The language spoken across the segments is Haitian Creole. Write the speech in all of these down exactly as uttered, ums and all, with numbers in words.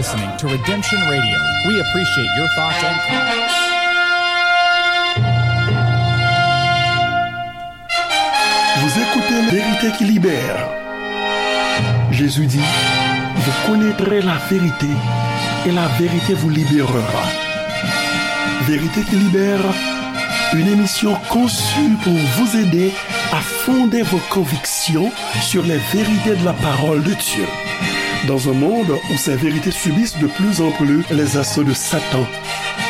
Listening to Redemption Radio. We appreciate your thoughts and comments. Vous écoutez La vérité qui libère. Jésus dit, vous connaîtrez la vérité et la vérité vous libérera. Vérité qui libère, une émission conçue pour vous aider à fonder vos convictions sur les vérités de la parole de Dieu. Dans un monde où ces vérités subissent de plus en plus les assauts de Satan,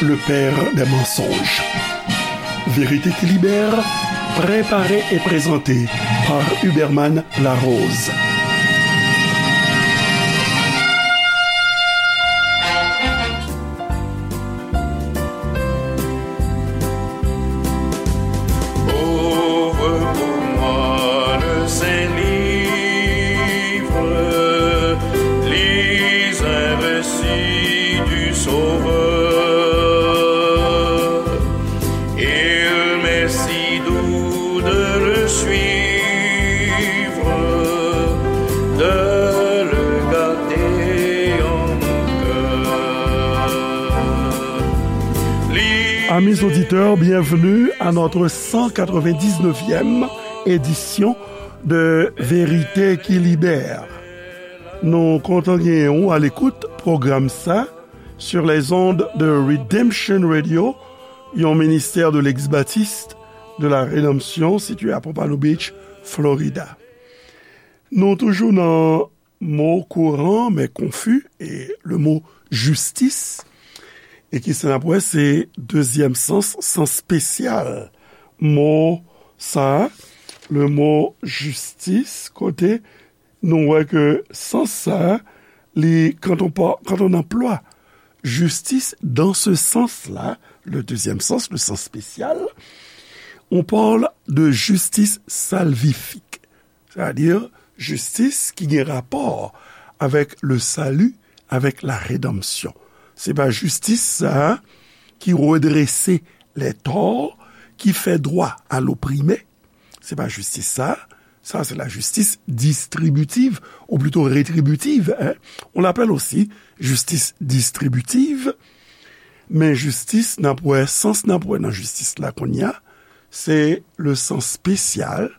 le père des mensonges. Vérité qui libère, préparée et présentée par Huberman Larose. Ouvre pour moi le Saint-Livre, lis un récit du Sauveur. Il m'est si doux de le suivre, de le garder en mon cœur. Amis auditeurs, bienvenue à notre cent quatre-vingt-dix-neuvième édition de Vérité qui Libère. Nou kontan genyen w alekout pwogram sa sur les ondes de Redemption Radio, yon ministè de l'ex-baptiste de la Rédemption, sitiye a Pompano Beach, Florida. Nou toujou nan mo kouran, men konfi, e le mo jistis. E ki sa n ap wè, se dezyèm sans, sans espesyal mo sa, le mo jistis, kote nou wè ke sans sa, li, quand on par-, quand on emploie justice dans ce sens-là, le deuxième sens, le sens spécial, on parle de justice salvifique, c'est-à-dire jistis ki gen rapò avèk le salut, avec la rédemption. Se pa jistis sa ki redrese les torts, ki fè droit à l'opprimé. Se pa jistis sa. Sa, c'est la justice distributive, ou plutôt rétributive, hein. On l'appelle aussi justice distributive. Men jistis, n ap wè, sans n ap wè nan jistis la kounye a, se le sens spécial,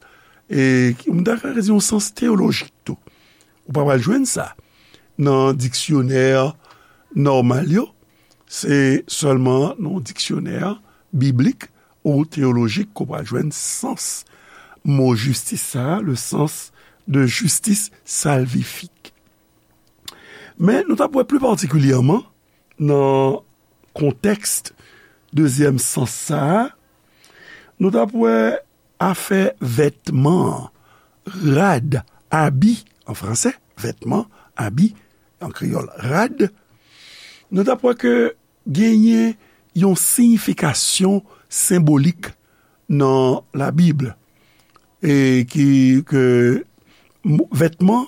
e ki, m ta ka di yon sans teyolojik tou. Ou pa pral jwenn sa nan diksyonè nòmal yo. Se sèlman nan diksyonè biblik ou teyolojik ke w pral jwenn sans mo jistis sa a, le sens de justice salvifique. Men nou t ap wè pli patikilyèman nan kontèks dezyèm sans sa a, nou t ap wè afè vètman an, rad, abi an fransè, vètman, abi an kreyòl, rad, nou t ap wè ke genyen yon siyifikasyon senbolik nan Labib, e ki, ke mo-, vètman,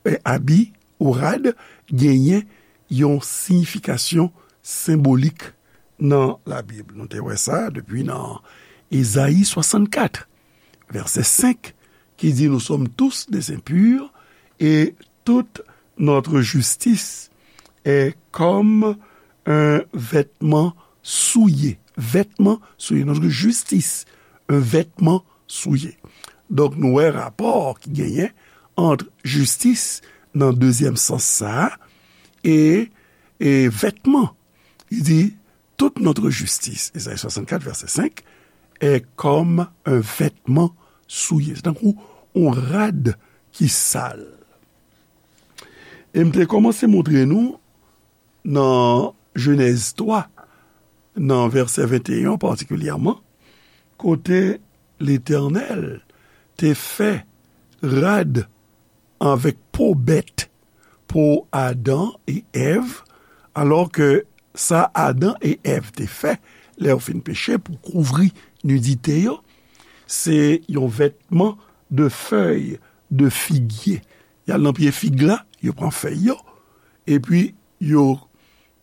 e, abi ou rad genyen yon siyifikasyon senbolik nan Labib. Nou te wè sa depi nan Ezayi swasannkat, vèsè senk, ki di, nous sommes tous des impurs et toute notre justice est comme un vêtement souillé. Vètman souillé. Notre justice, un vêtement souillé. Donk, nou wè rapò ki genyen ant jistis nan dezyèm sans sa a e, e vètman. Li di, toute notre justice, Ezayi swasannkat, vèsè senk, est comme un vêtement souillé. Se tankou yon rad ki sal. E m te kòmanse montre nou nan Jenèz twa, nan vèsè venteyen patikilyèman, kote Letènèl te fè rad avèk po bèt, po Adan e Èv, alò ke sa Adan e Èv te fè, lè yo fin peche, pou kouvri nidite yo, se yon vètman de fèy de figye. Y al nan pye fig la, yo pran fèy yo, epi yo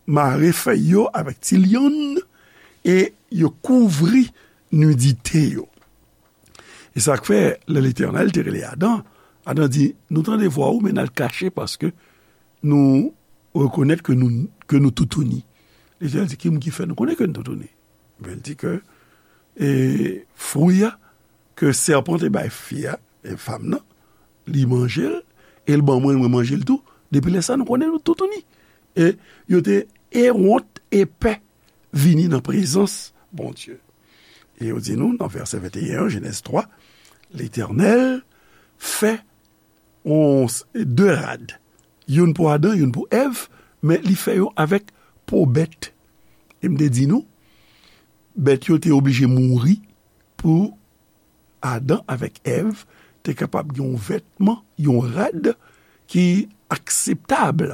mare fèy yo avèk ti lyann, e yo kouvri nidite yo. E sa k fè, lè Letènèl te rele Adan, Adan di, nou tande vwa ou, men n al kache, paske nou rekonèt ke nou, ke nou toutouni. Letènèl di, ki moun ki fè nou konnen ke nou toutouni? Ebyen, li di ke, e, fwi a ke sèpan te bay fi a, e, fanm nan, li manje l, e l ban mwen, mwen manje l tou. Depi lè sa, nou konnen nou toutouni. E yo te ewont e pè vini nan prezans Bondye. E yo di nou, nan vèsè venteyen an, Jenèz twa, Letènèl fè yon, de rad. Youn pou Adan, youn pou Èv, men li fè yo avèk po bèt. E m te di nou, bèt yo te oblije mouri pou Adan avèk Èv te kapab gen yon vètman, yon rad ki akseptab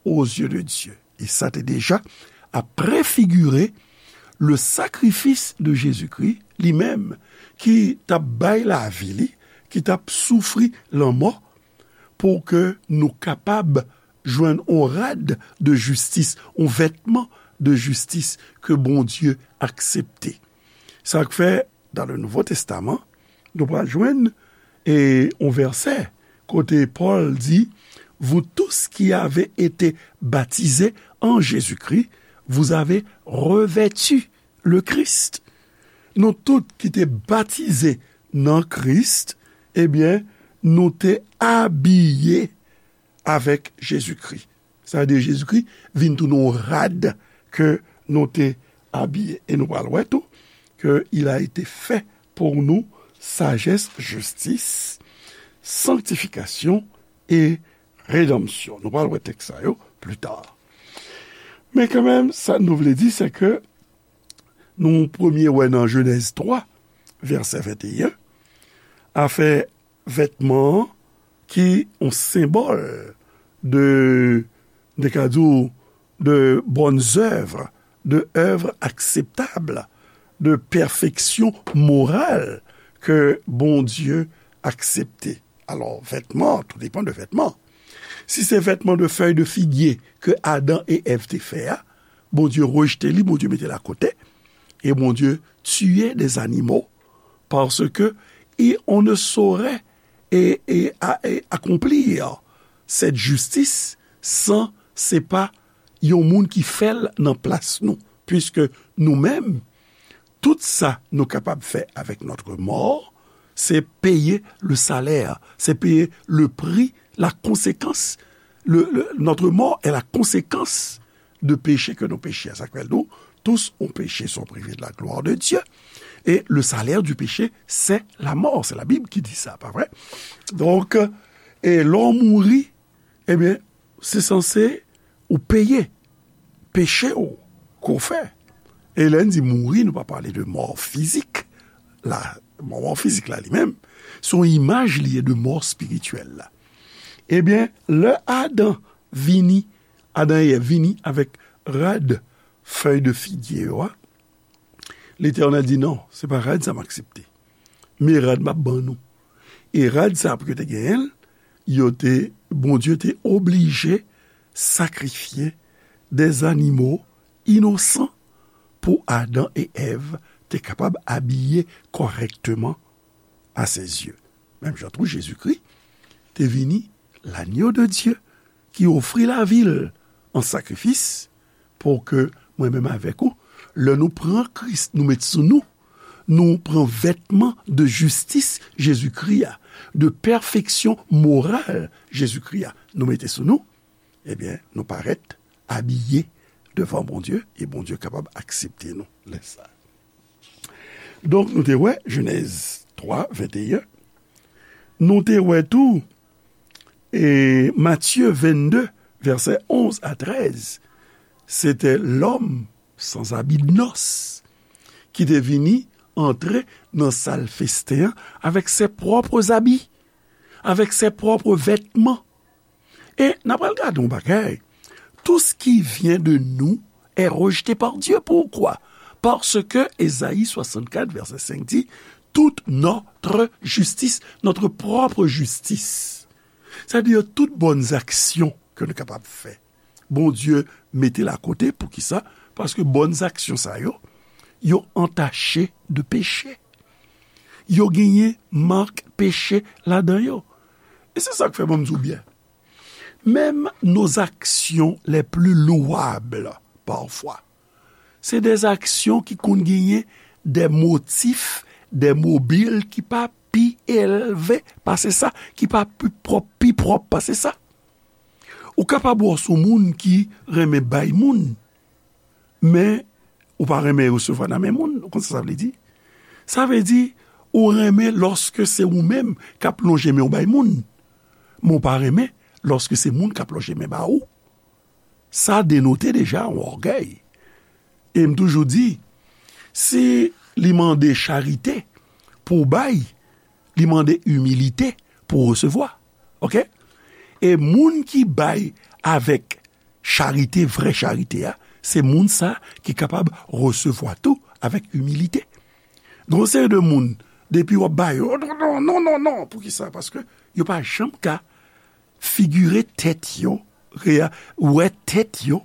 aux yeux de Dieu. E sa te deja ap prefigire le sacrifice de Jésus-Christ, li menm ki t ap bay lavi li, ki t ap soufri lanmò, pou ke nou kapab jwenn yon rad de jistis, yon vètman de jistis ke Bondye aksepte. Sa k fè, dans le Nouveau Testament, nou pral jwenn, e, yon vèsè kote Pòl di, vous tous qui avez été baptisés en Jésus-Christ, vous avez revêtu le Christ. Nou tout ki te batize nan Kris, ebyen, nou te abiye avèk Jezikri. Sa vle di Jezikri vin tounen yon rad ke nou te abiye. E nou pral wè tou ke il a été fait pour nous sagesse, justice, sanctification et rédemption. Nou pral wè tèks sa yo pli ta. Men kanmenm, sa nou vle di, se ke nou premye wè nan Jenèz twa, vèsè venteyen, afè vètman an ki yon senbòl de, de ka di w, de bonnes œuvres, de œuvres acceptables, de pèfeksyon moral ke Bondye aksepte. Alò, vètman, tout depan de vètman. Si se vètman de fèy de figye ke Adan e Èv te fè a, Bondye rejte li, Bondye mete l akote, e Bondye tiye des animaux, parce que, et on ne saurait, et, et, a- et accomplir cette justice san se pa yon moun ki fè l nan plas nou, puiske nou menm, tout sa nou kapab fè avec notre mort, c'est payer le salaire, c'est payer le prix, la conséquence. Le, le- notre mort est la conséquence de péché que nous péchons. Sa k fè l di w, tous ont péché, sont privés de la gloire de Dieu. Et le salaire du péché, c'est la mort. C'est la Bible qui dit ça, pa vre? Donk, e lè w mouri, ebyen, se sanse ou peye peche w ke w fè. E lè n di mouri, nou pa pale de mò fizik. La, mò, mò fizik la li menm, se yon imaj li ye de mò espirityèl la. Ebyen, lè Adan vini, Adan e Èv vini avèk rad fèy de figye yo a, Letènèl di, "Non, se pa rad sa m aksepte. Men rad m ap ban nou." E rad sa, pou yo te genyen l, yo te, Bondye te oblije sakrifye des animaux innocents pou Adan e Èv te kapab abiye kòrèkteman à ses yeux. Menm jan tou, Jezikri te vini, l'agneau de Dieu, ki ofri lavi l an sakrifis pou ke mwen menm avèk ou, lè nou pran Kris, nou met sou nou, nou pran vètman de jistis Jezikri a, de pèfeksyon moral Jezikri a, nou mete sou nou, ebyen, nou parèt abiye devan Bondye, e Bondye kapab aksepte nou lè sa. Donk, nou te wè Jenèz twa, venteyen. Nou te wè tou, e, Matye vennde, vèsè onz a trèz. Se te lòm sans habit de noces ki te vini antre nan sal festen an avèk ses propres habits, avèk ses propres vêtements. E n apral gade yon bagay. Tout ce qui vient de nous est rejeté par Dieu. Pourquoi? Parce que Ésaïe soixante-quatre, verset cinq dit, toute notre justice, notre propre justice. Sa vle di tout bòn aksyon ke nou kapab fè, Bondye mete l akote. Poukisa? Paske bòn aksyon sa yo, yo antache de peche. Yo genyen mak peche ladan yo. E se sa k fè, ban m di w byen, Même nos actions les plus louables, parfois, c'est des actions ki konn genyen des motifs, des mobiles ki pa pi elve pase sa, ki pa pi pwòp, pi pwòp pase sa. Ou kapab wè s on moun ki renmen bay moun, men ou pa renmen resevwa nan men moun. Ou konn sa sa vle di? Sa vle di, ou renmen lòske se ou menm k ap lonje men w bay moun, men ou pa renmen lòske se moun k ap lonje men ba ou. Sa denote deja yon ògèy. E m toujou di, si li mande charite pou w bay, li mande imilite pou w resevwa. Oke? E moun ki bay avèk charite, vrè charite a, se moun sa ki kapab resevwa tou avèk imilite. Gon seri de moun, depi w ap ba yo, non, non, non, non, non, non. Poukisa? Paske yo pa janm ka figire tèt yo, rea-, wè tèt yo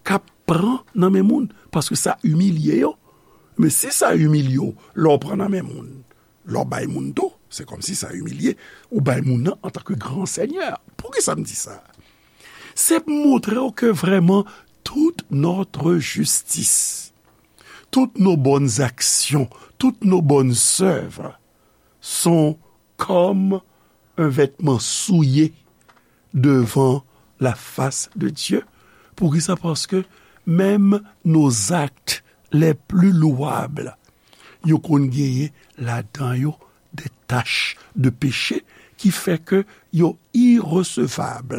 k ap pran nan men moun, paske sa imilye yo. Men si sa imilye w, lè w pran nan men moun, lè w bay moun tou, se kòmsi sa imilye, ou bay moun nan antanke gran sènyè. Poukisa m di sa? Se pou montre w ke vrèman toute notre justice, toutes nos bonnes actions, toutes nos bonnes œuvres sont comme un vêtement souillé devant la face de Dieu. Poukisa? Paske menm nos actes les plus louables, yo konn genyen ladan yo de tach de peche ki fè ke yo iresevab.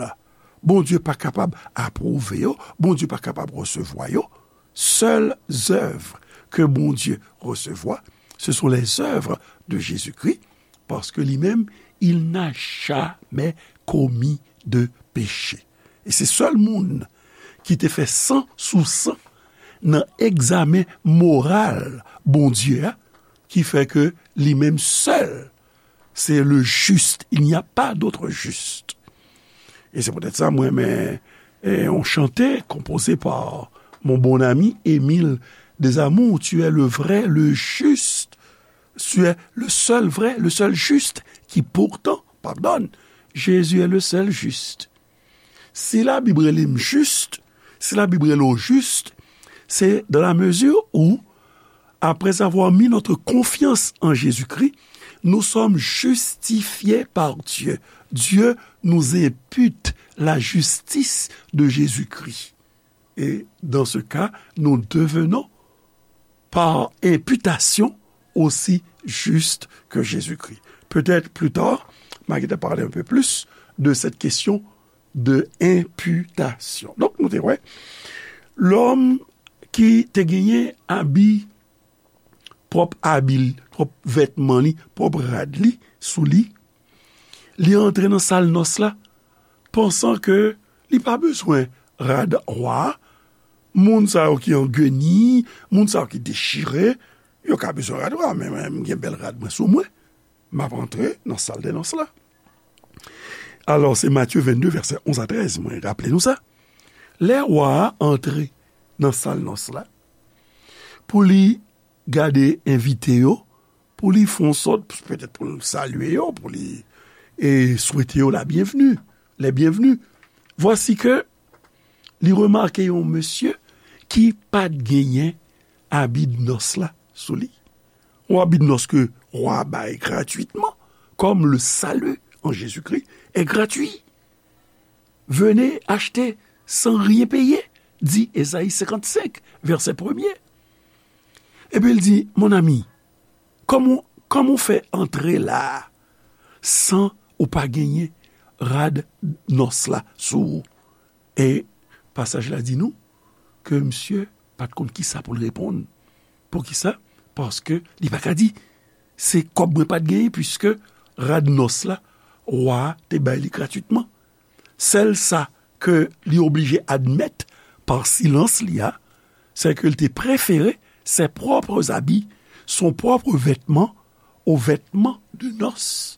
Bondye pa kapab apwouve yo, Bondye pa kapab resevwa yo. Seules œuvres que Bondye resevwa, ce sont les œuvres de Jésus-Christ, parce que lui-même, il n'a jamais commis de péché. E se sèl moun ki te fè san sou san nan egzamen moral Bondye a, ki fè ke li menm sèl, c'est le juste, il n'y a pas d'autre juste. Et c'est peut-être ça, mwen renmen, eh, yon chante composé par mon bon ami Émile Desamours, tu es le vrai, le juste, tu es le seul vrai, le seul juste, qui pourtant pardonne. Jésus est le seul juste. Si Labib rele m jis, si Labib rele w jis, c'est dans la mesure où, après avoir mis notre confiance en Jésus-Christ, nous sommes justifiés par Dieu. Dieu nous impute la justice de Jésus-Christ. Et dans ce cas, nous devenons par imputation aussi juste que Jésus-Christ. Peut-être plus tard, m a gentan pale un peu plus de cette question de imputation. Donk, nou te wè, lòm ki te genyen abi, pwòp abi l, pwòp vètman li, pwòp rad li sou li, li antre nan sal nòs la, pansan ke li pa bezwen rad wa a. Moun sa yo ki an geni, moun sa yo ki dechire, yo ka bezwen rad wa, men mwen, m gen bèl rad mwen sou mwen. M ap antre nan sal de nòs la. Alò, se Matye vennde, vèsè onz a trèz, mwen raple nou sa. Lè wa a antre nan sal nòs la, pou li gade envite yo, pou li fè yon sòt, petèt pou l salye yo, pou li, e, swete yo la bienvenue, les bienvenus. Vwasi ke li remake yon mesye ki pa t genyen abi de nòs la sou li. Yon abi de nòs ke wa a bay gratwitman, comme le salut en Jésus-Christ est gratuit. Venez acheter sans rien payer, dit Ésaïe cinquante-cinq, verset premier. Epi l di, mon ami, kòman, kòman w fè antre la a san ou pa genyen rad nòs la sou ou? E pasaj la di nou ke misye pa t konn kisa pou l reponn. Poukisa? Paske li pa ka di, se kòb mwen pa t genyen, piske rad nòs la, wa a te bay li gratwitman. Sèl sa ke li oblije admèt pa silans li a, c'est que il te préférait ses propres habits, son propre vêtement, au vêtement de noces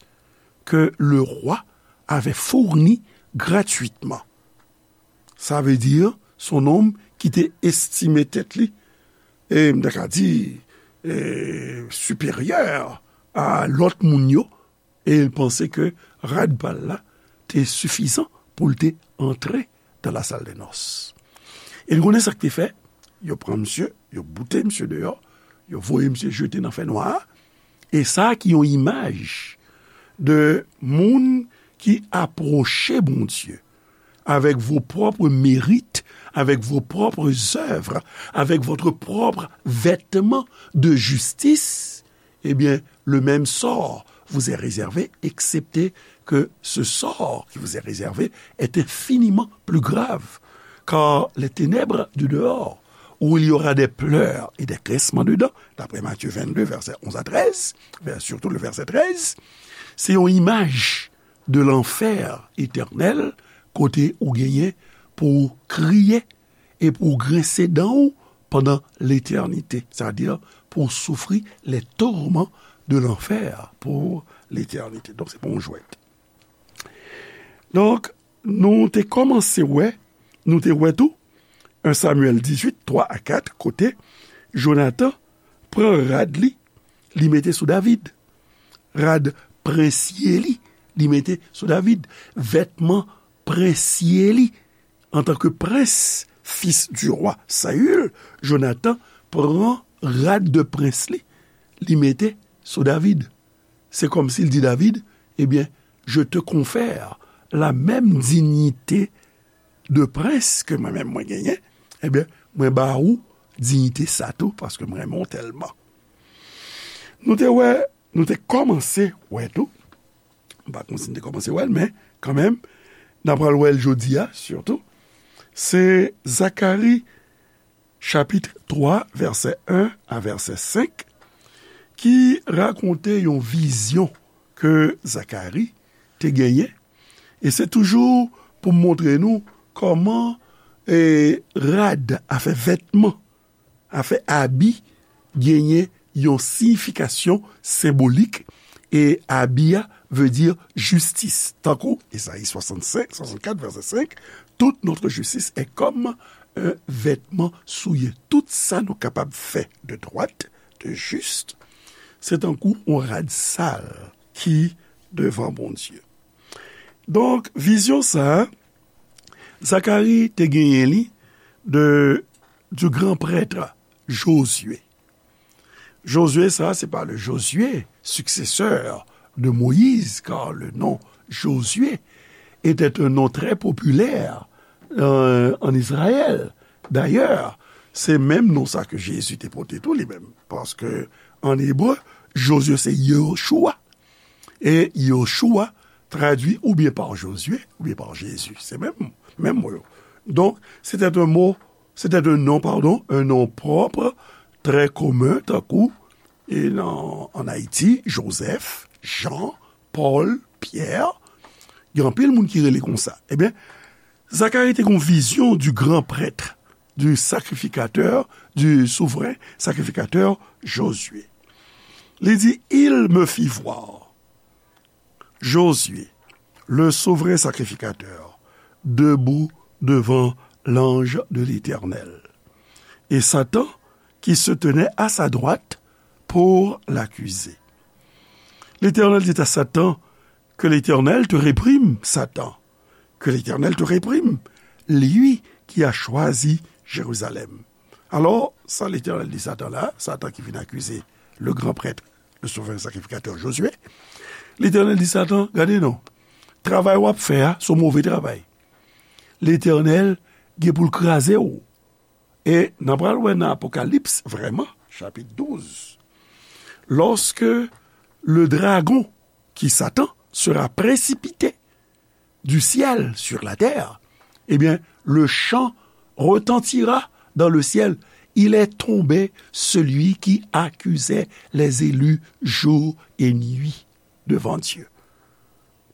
que le roi avait fourni gratuitement. Sa vle di, se yon nonm ki te estime tèt li, e m ta ka di, e, siperyè a lòt moun yo, e l panse ke rad pa l la te sifizan pou l te antre dans la salle de noces. E n konnen sa k te fè, yo pran misye, yo boute misye deyò, yo voye misye jete nan fènwa a. E sa ki yon imaj de moun ki apwoche Bondye avec vos propres mérites, avec vos propres œuvres, avec votre propre vêtement de justice, eh bien, le même sort vous est réservé, excepté que ce sort qui vous est réservé est infiniment plus grave. Car les ténèbres du dehors, où il y aura des pleurs et des grincements de dents, d'après Matthieu vingt-deux, versets onze à treize, vers- surtout le verset treize, se yon imaj de lanfè etènèl, kote ou genyen pou w kriye e pou w grense dan w pandan letènite, sètadi pou w soufri les tourments de l'enfer pour l'éternité. Donk, se pa yon jwèt. Donk, nou te kòmanse wè, nou te wè tou, un Samuel dizwit, twa a kat, kote Jonatan pran rad li, li mete sou David. Rad prensye li, li mete sou David. Vètman prensye li, antanke prens, fis du roi Saül, Jonatan pran rad de prens li, li mete sou David. Se kòmsi l di David, ebyen, je te confère la même dignité de prince ke mwen menm mwen genyen, ebyen, mwen ba ou diyite sa tou, paske mwen renmen w tèlman. Nou te wè, nou te kòmanse wè tou, m pa konn si n te kòmanse wè l, men kanmenm, n apral wè l jodi a, sitou, se Zakari chapit twa, vèsè en a vèsè senk, ki rakonte yon vizyon ke Zakari te genyen. E se toujou pou montre nou kòman, e, rad, afè vètman, afè abi, genyen yon siyifikasyon senbolik, e abi a vle di jistis. Tankou Ezayi swasannsenk, swasannkat, vèsè senk, toute notre justice est comme un vêtement souillé. Tout sa nou kapab fè de dwat, de jis, se tankou yon rad sal ki devan Bondye. Donk, vizyon sa a, Zakari te genyen li de, du grand prêtre Josué. Josué, sa, se pa le Josué, successeur de Moïse, car le nom Josué était un nom très populaire, euh, en Israël. D'ailleurs, se menm non sa ke Jezi te pote tou li menm. Paske an ebre, Josué se Yehoshua. E Yehoshua tradui oubyen pa Jozye, oubyen pa Jezi. Se menm, menm mo yo. Donk, c'était un mot, c'était un nom, pardon, un nom propre, très commun, tankou, e nan, an Ayiti, Jozèf, Jan, Pòl, Pyè. Gen anpil moun ki rele konsa. Ebyen, Zakari te gen yon vizyon du grand prêtre, du sacrificateur, du souverain sacrificateur Josué. Li di, il me fit voir Josué, le souverain sacrificateur, debout devant l'ange de l'Éternel, et Satan qui se tenait à sa droite pour l'accuser. L'Éternel dit à Satan, que l'Éternel te réprime, Satan. Que l'Éternel te réprime, lui qui a choisi Jérusalem. Alò, sa Letènèl di Satan la, Satan ki vin akize le gran prèt, le souvren sakrifikatè Jozye, Letènèl di Satan, gade non, travay w ap fè a, se yon move travay. Letènèl gen pou l kraze w. E n a pral wè nan Apokalips, vrèman, chapit douz, lorsque le dragon, qui Satan, sera précipité du ciel sur la terre, eh bien, le chant retentira dans le ciel. Il est tombé celui qui accusait les élus jour et nuit devant Dieu.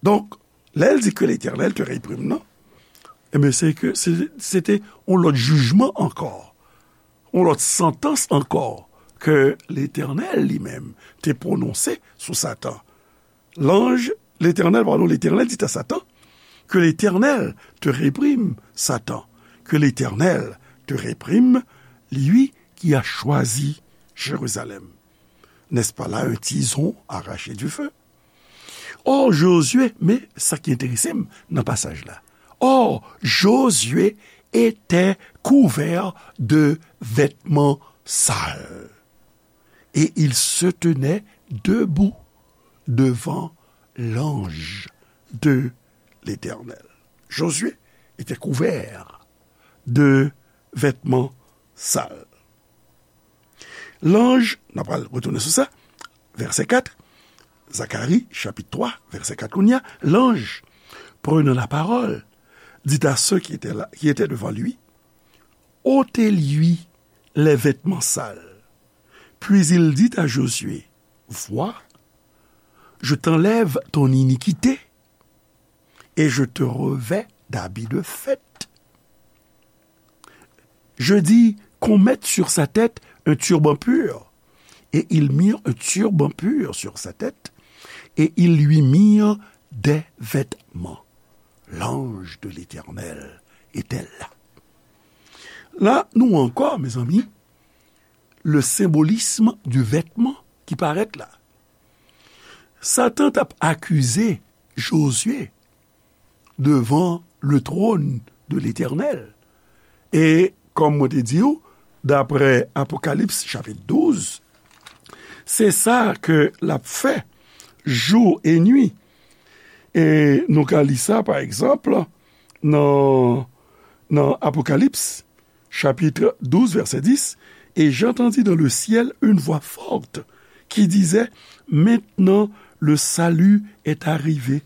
Donk, lè l di ke Letènèl te reprime nan, ebyen, se ke se, se te yon lòt jijman ankò, yon lòt santans ankò ke Letènèl li menm te pwononse sou Satan. L'ange, l'Éternel, pardon, l'Éternel dit à Satan, que l'Éternel te réprime, Satan, que l'Éternel te réprime, lui qui a choisi Jérusalem. N'est-ce pas là un tison arraché du feu? Or, Josué, men sa ki enterese m nan pasaj la, Or, Josué était couvert de vêtements sales, et il se tenait debout devant l'ange de l'Éternel. Josué était couvert de vêtements sales. L'ange, n ap pral retounen sou sa, vèsè kat, Zacharie, chapitre trois, verset quatre, kounye a, l'ange, prenant la parole, dit à ceux qui étaient là, qui étaient devant lui, ôtez-lui les vêtements sales. Puis il dit à Josué, vois, je t'enlève ton iniquité et je te revêts d'habits de fête. Je dis qu'on mette sur sa tête un turban pur. Et ils mirent un turban pur sur sa tête, et ils lui mirent des vêtements. L'ange de l'Éternel était là. La, nou ankò, mezanmi, le symbolisme du vêtement ki parèt la. Satan t ap akize Josué devant le trône de l'Éternel. E, kòm mwen te di w, daprè Apokalips chapit douz, se sa ke l ap fè jou e nwi. E nou ka li sa, pa egzanp, nan, nan Apokalips, chapitre douze, verset dix, et j'entendis dans le ciel une voix forte qui disait, maintenant le salut est arrivé,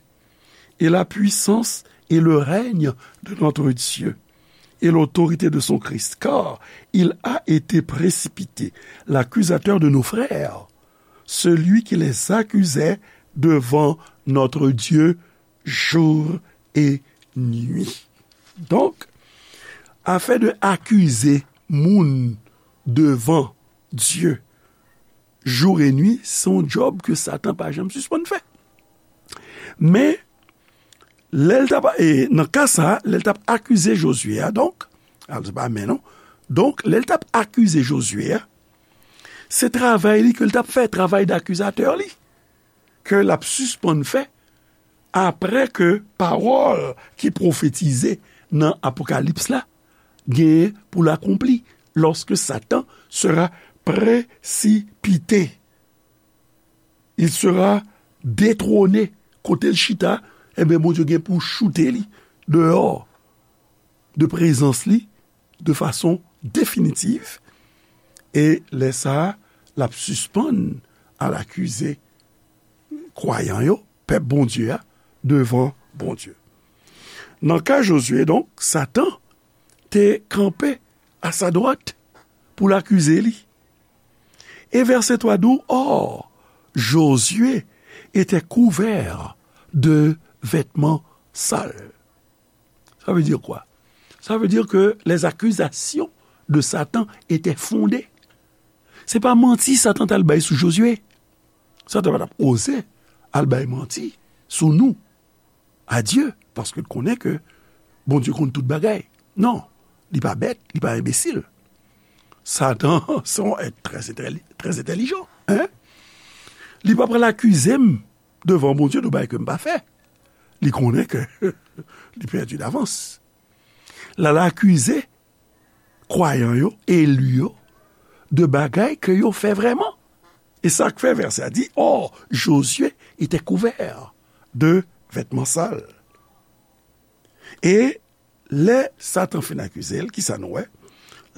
et la puissance et le règne de notre Dieu, et l'autorité de son Christ, car il a été précipité, l'accusateur de nos frères, celui qui les accusait devant notre Dieu jour et nuit. Donk, afè de akize moun devan Dye jou e nwi, se yon djòb ke Satan pa janm sispann fè. Men, lè l t ap, e, nan ka sa a, lè l t ap akize Josué a, donk, al, se pa men non. Donk, lè l t ap akize Josué a, se travay li ke l t ap fè, travay dakizatè li, ke l ap sispann fè, apre ke pawòl ki pwofetize nan Apokalips la genyen pou l akonpli, lorsque Satan sera précipité. Il sera détrôné. Kote l chita, enben, Bondye gen pou choute li deyò de prezans li de fason definitif. E lè sa a, l ap sispann al akize kwayan yo, pèp Bondye a, devan Bondye. Nan ka Josué, donk, Satan te kanpe a sa dwat pou l akize li. E vèsè twa di w, or, Josué était couvert de vêtements sales. Ça veut dire quoi? Ça veut dire que les accusations de Satan étaient fondées. Se pa manti Satan t al bay sou Josué. Satan pa t ap oze al bay manti sou nou a Dye, paske l konnen ke Bondye konn tout bagay. Non, li pa bèt, li pa enbesil. Satan se yon èt trè entèli-, trè entèlijan, en. Li pa pral akize m devan Bondye de bagay ke m pa fè. Li konnen ke li pèdi davans. L al akize kwayan yo, eli yo, de bagay ke yo fè vrèman. E sa k fè vèsè a di, or, Josué était couvert de vêtements sales. E lè Satan fin akize l, kisa nou wè?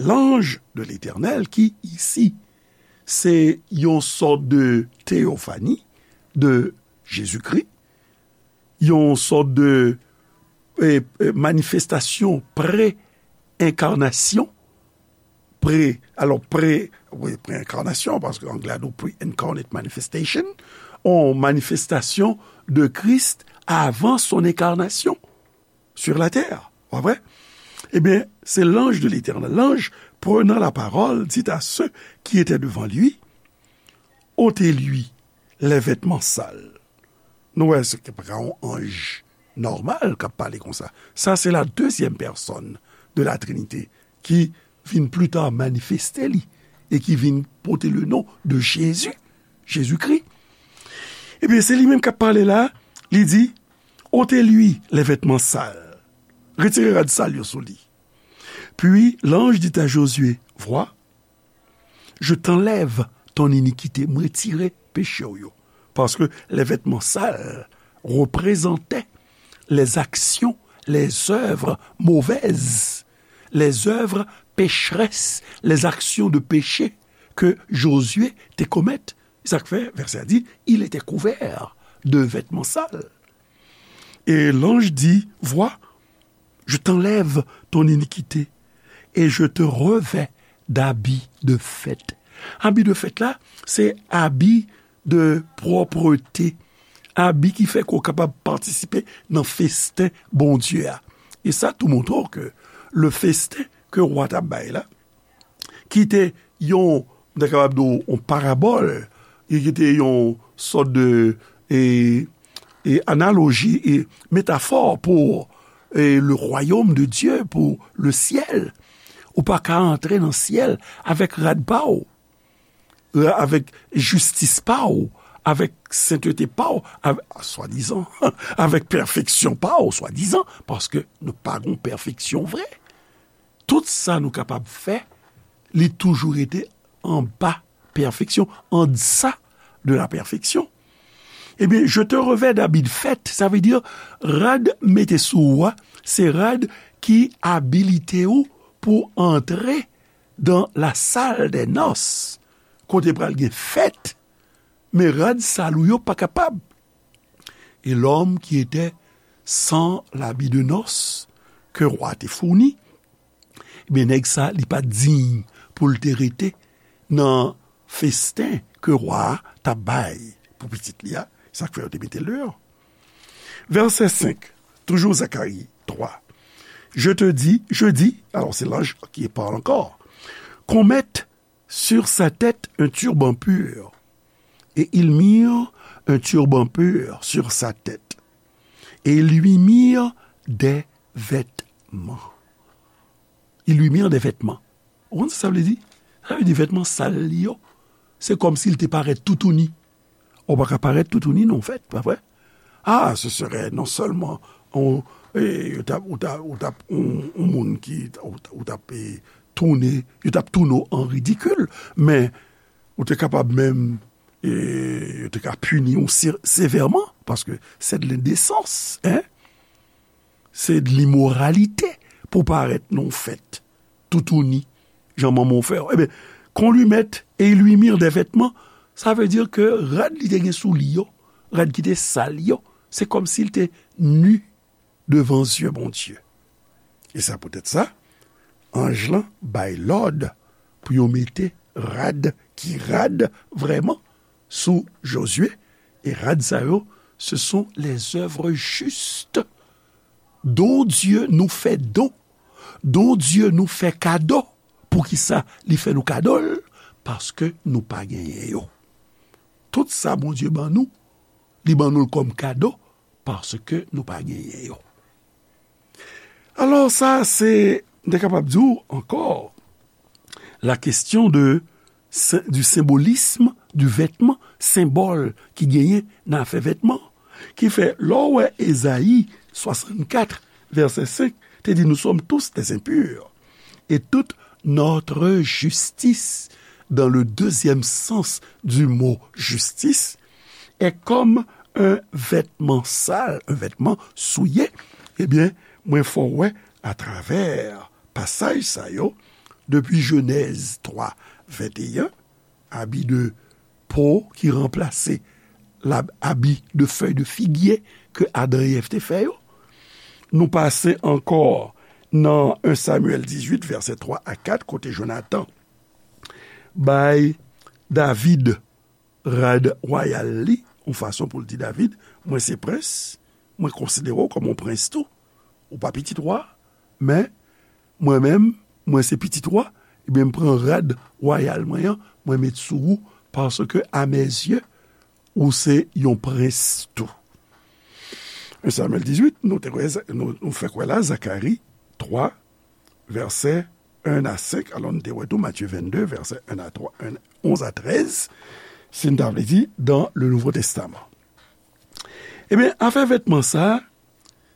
L'ange de l'Éternel, ki isi, se yon sòt de teyofani de Jezikri, yon sòt de, e, e, manifestasyon pre-enkarnasyon, pre, alò, pre, wi, pre-enkarnasyon, paske anglè a di pre-incarnate manifestation, yon manifestasyon de Kris avan son enkarnasyon sur la terre. Pa vre? Ebyen, se l'ange de l'Éternel. L'ange, prenant la parole, dit à ceux qui étaient devant lui, ôtez-lui les vêtements sales. Nou wè, se pa yon anj nòmal k ap pale konsa. Sa, se la deuxième personne de la Trinité ki vin pli ta manifeste li e ki vin pote le non de Jésus, Jezikri. Ebyen, se li menm k ap pale la, li di, ôtez-lui les vêtements sales. Retire rad sal yo sou li. Puis l'ange dit à Josué, vois, je t'enlève ton iniquité, m retire peche w yo. Parce que les vêtements sales représentaient les actions, les œuvres mauvaises, les œuvres pécheresses, les actions de péché que Josué te commettait. Sa k fè, vèsè a di, il était couvert de vêtements sales. Et l'ange dit, vois, je t'enlève ton iniquité et je te revêts d'habits de fête. Abi de fèt la, se abi de pwòpte, abi ki fè ke w kapab patisipe nan festen Bondye a. E sa tou montre w ke le festen ke wa t ap bay la, ki te yon, m ta kapab di w, yon parabòl, e ki te yon sòt de, e, e analoji, e metafò pou, e, le royaume de Dieu, pou le ciel. Ou pa ka antre nan syèl avèk rad pa w, avèk jistis pa w, avèk sentete pa w, avèk, swadizan, avèk pèfeksyon pa w, swadizan, paske nou pa gon pèfeksyon vre. Tout sa nou kapab fè, li toujou rete anba pèfeksyon, en deçà de la perfection. Ebyen, je te revêts d'habits de fête, sa vle di, rad mete sou ou a, se rad ki abilite ou pou antre dans la salle des noces, kote pral gen fèt, men rad sal ou yo pa kapab. Et l'homme qui était sans l'habit de noces que roi te fourni, ebyen, nèg sa, li pa t diy pou l te rete nan festen ke wa a t ap bay pou pitit li a, sa k fè yo te mete l deyò. Vèsè senk, toujou Zakari twa. Je te dis, je dis, alors c'est l'ange qui parle encore, qu'on mette sur sa tête un turban pur. Et ils mirent un turban pur sur sa tête. Et ils lui mirent des vêtements. Ils lui mirent des vêtements. Ou konn sa sa vle di? Sa vle di vètman sal li yo. Se kòmsi l te parèt toutouni. Ou pa ka parèt toutouni nan yon fèt, pa vre? Ah, ce serait non seulement on, e, ou t ap, ou t ap, ou t ap, on, on moun ki, ou t ap, ou t ap, e, tounen, yo t ap tounen w an ridikil, men ou te kapab menm, e, yo te ka pini w se-, sevèman, paske c'est de l'indécence, hein? Se de limoralite pou parèt nan yon fèt toutouni, jan manman w fè w. Ebyen, qu'on lui mette et ils lui mirent des vêtements, sa vle di ke rad li te gen sou li yo, rad ki te sal yo, se kòmsi l te ni devan zye Bondye. E sa poutèt sa, anj lan bay lòd pou yo mete rad ki rad vrèman sou Jozye, e rad sa yo, ce sont les œuvres justes dont Dieu nous fait don, dont Dieu nous fait cadeau. Poukisa li fè nou kado l? Paske nou pa genyen yo. Tout sa Bondye ban nou, li ban nou l kòm kado, paske nou pa genyen yo. Alò, sa se, m te kapab di w ankò, la question de, du symbolisme du vêtement, senbòl ki genyen nan afè vètman, ki fè, lè w wè Ezayi swasannkat, vèsè senk, te di, nous sommes tous des impurs, et toute notre justice, dans le deuxième sens du mot justice, est comme un vêtement sale, un vêtement souillé, ebyen, mwen fè w wè atravè pasaj sa yo, depi Jenèz twa, venteyen, abi de po ki ranplase la, abi de fèy de figye ke Adan e Èv te fè yo. Nou pase ankò nan en Samyèl dizuit, vèsè twa a kat, kote Jonatan bay David rad wayal li, yon fason pou l di David, mwen se prens, mwen konsidere w kòm yon prens tou. Ou pa pitit wa, men mwen menm, mwen se pitit wa, ebyen, m pran rad wayal mwen an, mwen met sou ou, paske à mes yeux, ou se yon prens tou. En Samyèl dizuit, nou te wè, nou, nou fèk wè la, Zakari twa, vèsè en a senk, alò nou te wè tou Matye vennde, vèsè en a twa, en, onz a trèz, si n ta vle di, dans le Nouveau Testament. Ebyen, afè vètman sa,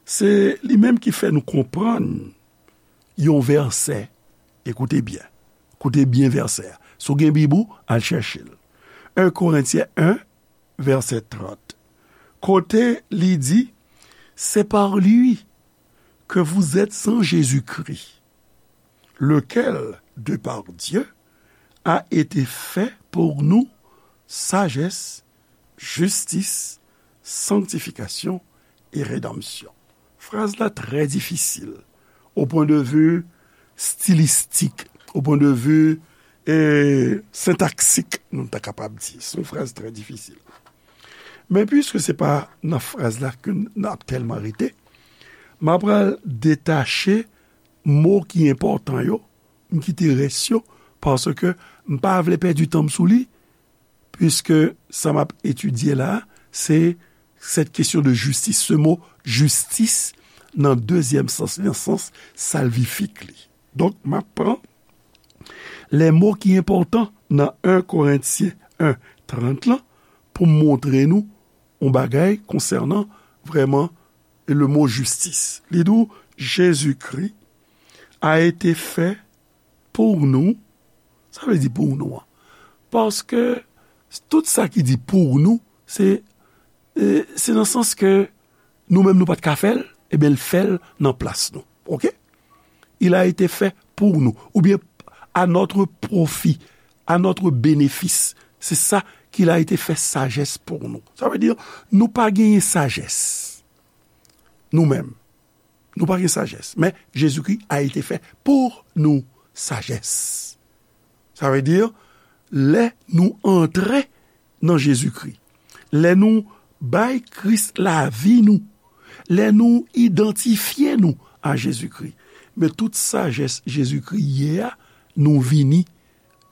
Se li menm ki fè nou konprann yon vèsè. Ekoute byen. Koute byen vèsè a. Si w gen Bib ou, al chèche l. En Korentyen en, vèsè trant. Kote li di, c'est par lui que vous êtes en Jésus-Christ, lequel, de par Dieu, a été fait pour nous sagesse, justice, sanctification et rédemption. Fraz la trè difisil, au point de vue stylistique, au point de vue, eh, syntaxique, nou ta kapab di. Se yon fraz trè difisil. Men piske se pa nan fraz la ke n ap tèlman rete, m ap pral detache mo ki enpòtan yo, m kite rès yo, paske m pa vle pèdi tan m sou li, piske sa m ap etidye la, se cette question de justice, ce mot justice, nan dezyèm sans, nan sans salvifik li. Donk, m ap pran lè mo ki enpòtan nan en Korentyen en trant lan pou m montre nou yon bagay konsènan vrèman le mot justice. Li di w, Jésus-Christ a été fait pour nous. Sa vle di pou nou an. Paske tout sa ki di pou nou, se, eh, se nan sans ke nou menm nou pa t ka fè l, ebyen, l fè l nan plas nou. Oke? Il a été fait pour nous. Oubyen, à notre profit, à notre bénéfice. C'est ça qu'il a été fait sagesse pour nous. Sa vle di, nou pa genyen sajès. Nou menm. Nou pa gen sajès. Men, Jezikri a été fait pour nous sagesse. Sa vle di, lè nou antre nan Jezikri, lè nou bay Kris lavi nou, lè nou idantifye nou a Jezikri, men tout sajès Jezikri ye a, nou vini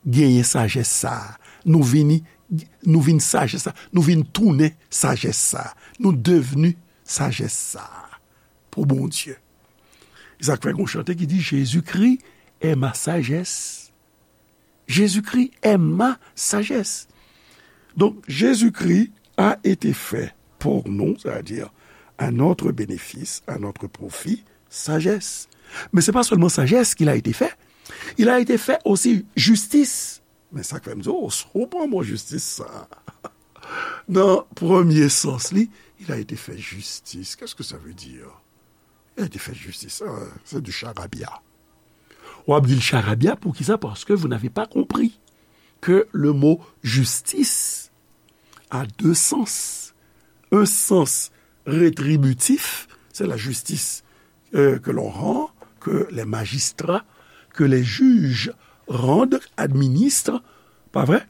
genyen sajès sa a. Nou vini, nou vin sajès sa a. Nou vin tounen sajès sa a. Nou devni sajès sa a pou Bondye. E sa k fè gon chante ki di, Jésus-Christ est ma sagesse. Jésus-Christ est ma sagesse. Donk, Jésus-Christ a été fait pour nous, c'est-à-dire à notre bénéfice, à notre profit, sagesse. Men se pa sèlman sajès qu'il a été fait, il a été fait aussi justice. Men sa k fè m di, oh, si w pran mo jistis sa. Nan premye sans li, il a été fait justice. Qu'est-ce que ça veut dire? Il a été fait justice. Ah, c'est du charabia. W ap di l charabia, poukisa? Parce que vous n'avez pas compris que le mot justice a deux sens. Un sens rétributif, c'est la justice, euh, que l'on rend, que les magistrats, que les juges rendent, administrent, pas vrai?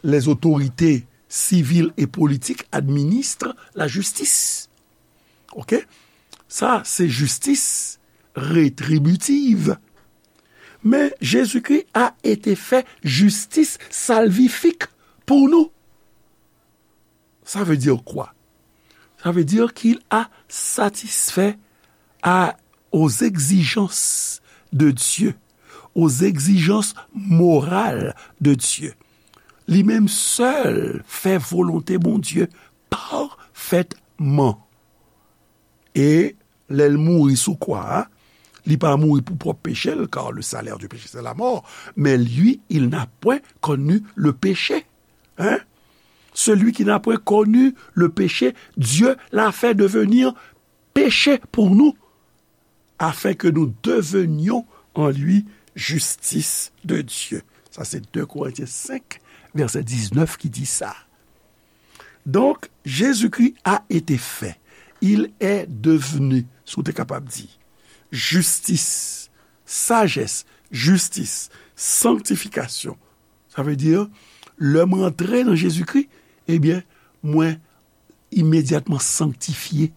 Les autorités civiles et politiques administrent la justice. Oke? Sa, se jistis retribitiv. Men Jésus-Christ a été fait justice salvifique pour nous. Ça veut dire quoi? Ça veut dire qu'il a satisfait à, aux exigences de Dieu, aux exigences morales de Dieu. Li menm sèl fè volonte Bondye pafètman. E lè l mouri sou kwa a, li pa mouri pou pwòp peche l, car le salaire du péché, c'est la mort. Mais lui, il n'a point connu le péché. Hein? Celui qui n'a point connu le péché, Dieu l'a fait devenir péché pour nous, afin que nous devenions en lui justice de Dieu. Sa se de Korentyen senk, vèsè diznèf ki di sa. Donk, Jésus-Christ a été fait. Il est devenu, si w te kapab di, jistis, sajès, jistis, sanktifikasyon. Sa vle di, lè m rantre nan Jezikri, ebyen, mwen imedyatman sanktifye.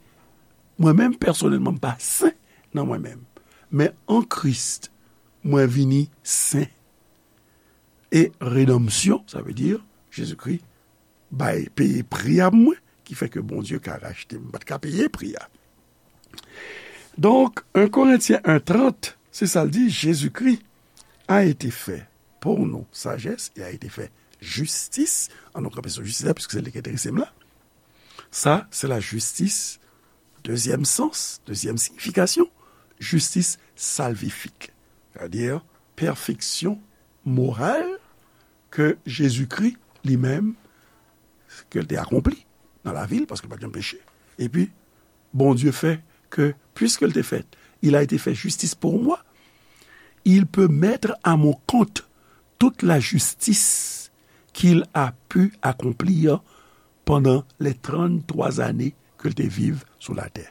Mwen menm, pèsonèlman, m pa sen nan mwen menm. Men an Kris, mwen vini sen. E redanmsyon, sa vle di, Jezikri bay, peye pri a pou mwen, ki fè ke Bondye ka rachte m. M pa t ka peye pri a. Donk, en Korentyen en trant, se sa l di, Jezikri a été fait pour nous sagesse et a été fait justice. An nou kanpe sou jistis la, piske se li ki enterese m la. Sa, se la jistis Dezyèm sans, dezyèm siyifikasyon, jistis salvifik. Sètadi, pèfeksyon moral ke Jezikri li menm, ke l te akonpli nan lavi l, paske l pa t janm peche. Epi, Bondye fè ke, puisque il était fait, il a été fait justice pour moi, il peut mettre à mon compte toute la justice qu'il a pu accomplir pendant les trente-trois années ke l te viv sou latè.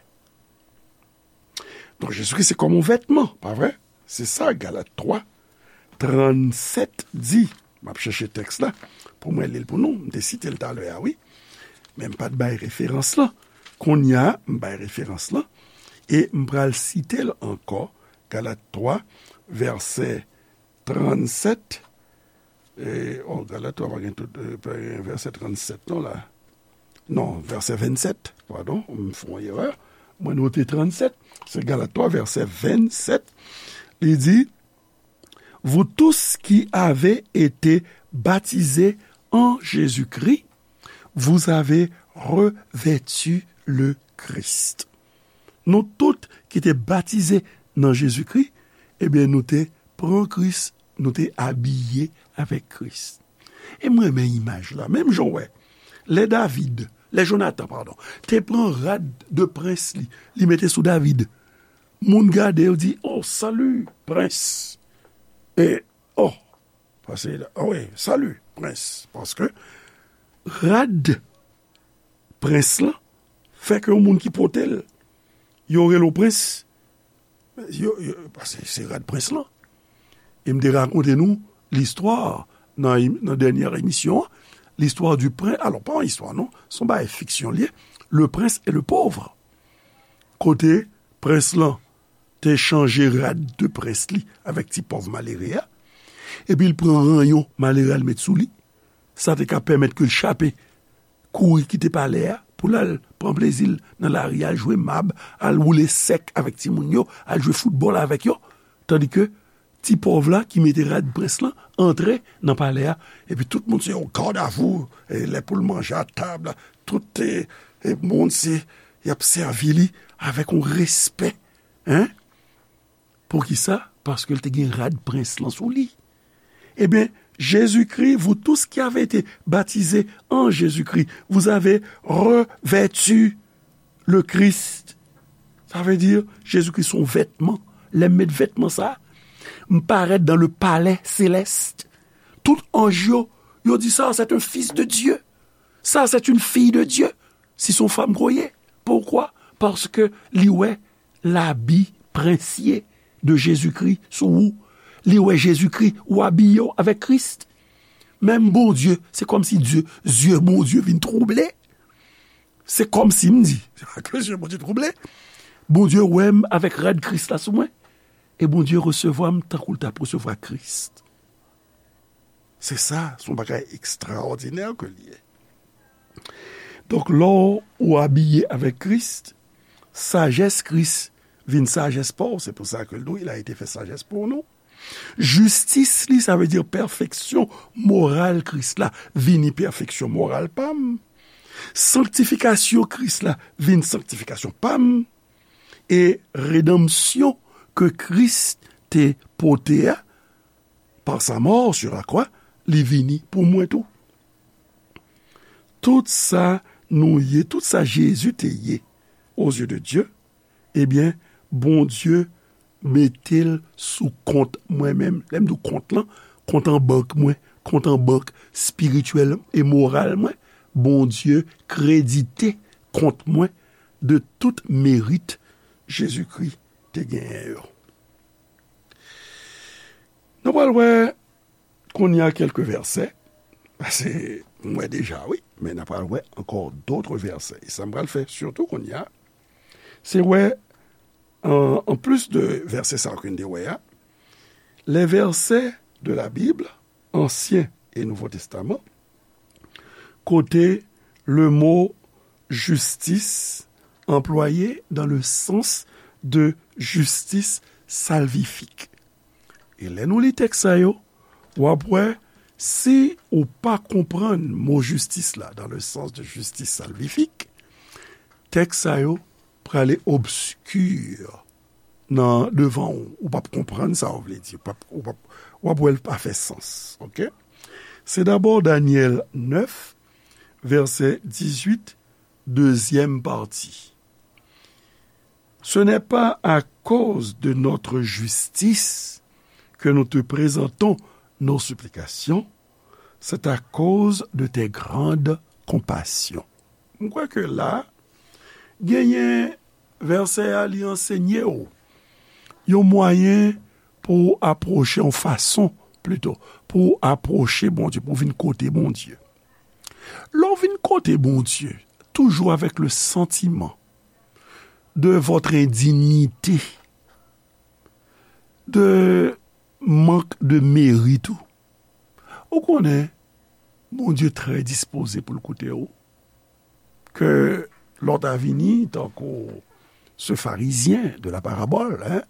Donk, Jezikri se kòm yon vètman, pa vre? Se sa Galat twa, trannsèt di. M ap chèche tèks la pou mwen li l pou nou. M te site l talè a, wi. Men m pa t bay referans lan. Kounye a, m bay referans lan. E m pral site l ankò. Galat twa, vèsè trannsèt. E, oh, Galat twa pa gen tout, e, pa gen vèsè trannsèt non la. Non, vèsè vennsèt, padon, m fè yon erè. Mwen note trannsèt, se Galat twa, vèsè vennsèt. Li di, vous tous qui avez été baptisés en Jésus-Christ, vous avez revêtu le Christ. Nou tout ki te batize nan Jezikri, ebyen, nou te pran Kris, nou te abiye avèk Kris. E mwen renmen imaj la. Menm jan w wè, lè David, lè Jonatan, padon, te pran rad de prens li, li mete sou David. Moun gade, yo di, "Oh, salut, prens." E, oh, paske, oh wi, "Salut, prens." Paske rad prens lan fè ke yon moun ki pote l, yo rele w prens, yo, yo, paske se rad prens lan. E m te rakonte nou listwa nan, nan dènyè emisyon an, listwa du prince, alò, pa yon istwa non, se yon bagay fiksyon li ye, Le Prince et le Pauvre. Kote prens lan te chanje rad de prens li avèk ti pòv malere a, epi l pran ranyon malere a l met sou li. Sa te ka pèmèt ke l chape kouri kite palè a pou l al pran plezi l nan lari, al jwe mab, al woule sèk avèk timoun yo, al jwe foutbòl avèk yo. Tandike ti pòv la ki mete rad prens lan antre nan palè a, epi tout moun se yon gardavou, e lè pou l manje a tab la, tout, e, e moun se, y ap sèvi li avèk yon respè, en? Poukisa? Paske l te gen rad prens lan sou li. Ebyen, Jésus-Christ, vous tous qui avez été baptisés en Jésus-Christ, vous avez revêtu le Christ. Sa vle di, Jezikri se yon vètman. Lè m met vètman sa, m parèt dans le palais céleste. Tout anj yo, yo di, "Ça, c'est un fils de Dieu. Ça, c'est une fille de Dieu." Si se yon fanm ke w ye. Poukwa? Paske li wè labi prensye de Jezikri sou ou. Li wè Jezikri, ou abiye w avèk Kris. Menm Bondye, se kòmsi Dye, zye Bondye vin twouble. Se kòmsi m di, se pa ke zye Bondye twouble. Bondye wè m avèk rad Kris la sou mwen. E Bondye resevwa m tankou l t ap resevwa Kris. Se sa, se yon bagay ekstraòdinè ke l ye. Donk, lè w abiye avèk Kris, sajès Kris vin sajès pa w. Se pou sa ke l di w, il a été fait sagesse pour nous. Jistis li, sa vle di pèfeksyon moral Kris la, vini pèfeksyon moral pa m. Sanktifikasyon Kris la, vin sanktifikasyon pa m. E redanmsyon ke Kris te pote a, par sa mort sur la croix, li vini pou mwen tou. Tout sa nou ye, tout sa Jezi te ye, aux yeux de Dieu, ebyen, Bondye mete l sou kont mwen menm. Lè m di w kont lan, kont an bank mwen, kont an bank espirityèl e moral mwen, Bondye kredite kont mwen de tout merit Jezikri te genyen yo. Nou pral wè kounye a kèlke vèsè, paske m wè deja, wi, men n a pral wè ankò dòt vèsè. E sa m pral fè sitou kounye a, se wè, an, an plis de vèsè sa yo ke n te wè a, les versets de la Bible, Ansyen e Nouvo Testaman, kote le mot justice employé dans le sens de justice salvifique. E lè nou li tèks sa yo, w ap wè, si ou pa konprann mo jistis la dans le sens de justice salvifique, tèks sa yo prale obski nan devan ou. Ou p ap konprann sa w vle di. Ou p ap, ou p ap, w ap wè l pa fè sans. Oke? Se dabò Danyèl nèf, vèsè dizuit, dezyèm pati. Ce n'est pas à cause de notre justice que nous te présentons nos supplications, c'est à cause de tes grandes compassions. M kwè ke la, genyen vèsè a, li ansenye w yon mwayen pou w apwoche, yon fason, plito, pou w apwoche Bondye, pou w vin kote Bondye. Lè w vin kote Bondye, toujou avèk le sentiment de votre indignité, de mank de merit ou, ou konnen Bondye trè dispoze pou l koute w. Ke lòt a vini, tankou ce pharisien de la parabole, hein,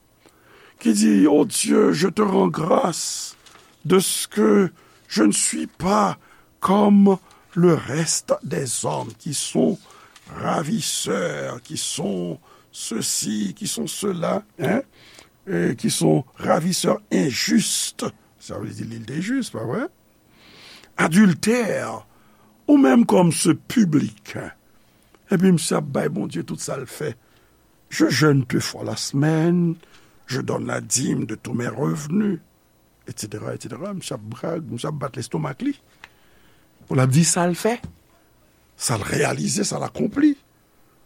qui dit, "Oh Dieu, je te rends grâce de ce que je ne suis pas comme le reste des hommes qui sont ravisseurs, qui sont ceci, qui sont cela, hein, et qui sont ravisseurs injustes." Sa vle di li te jis, pa vre? Adultère, ou menm comme ce public. Epi misye ap bay Bondye tout sa l fè. "Je jeûne deux fois la semaine, je donne la dîme de tous mes revenus, et cetera, et cetera." Misye ap brag, misye ap bat lestomak li. Pou l ap di sa l fè, sa l reyalize, sa l akonpli.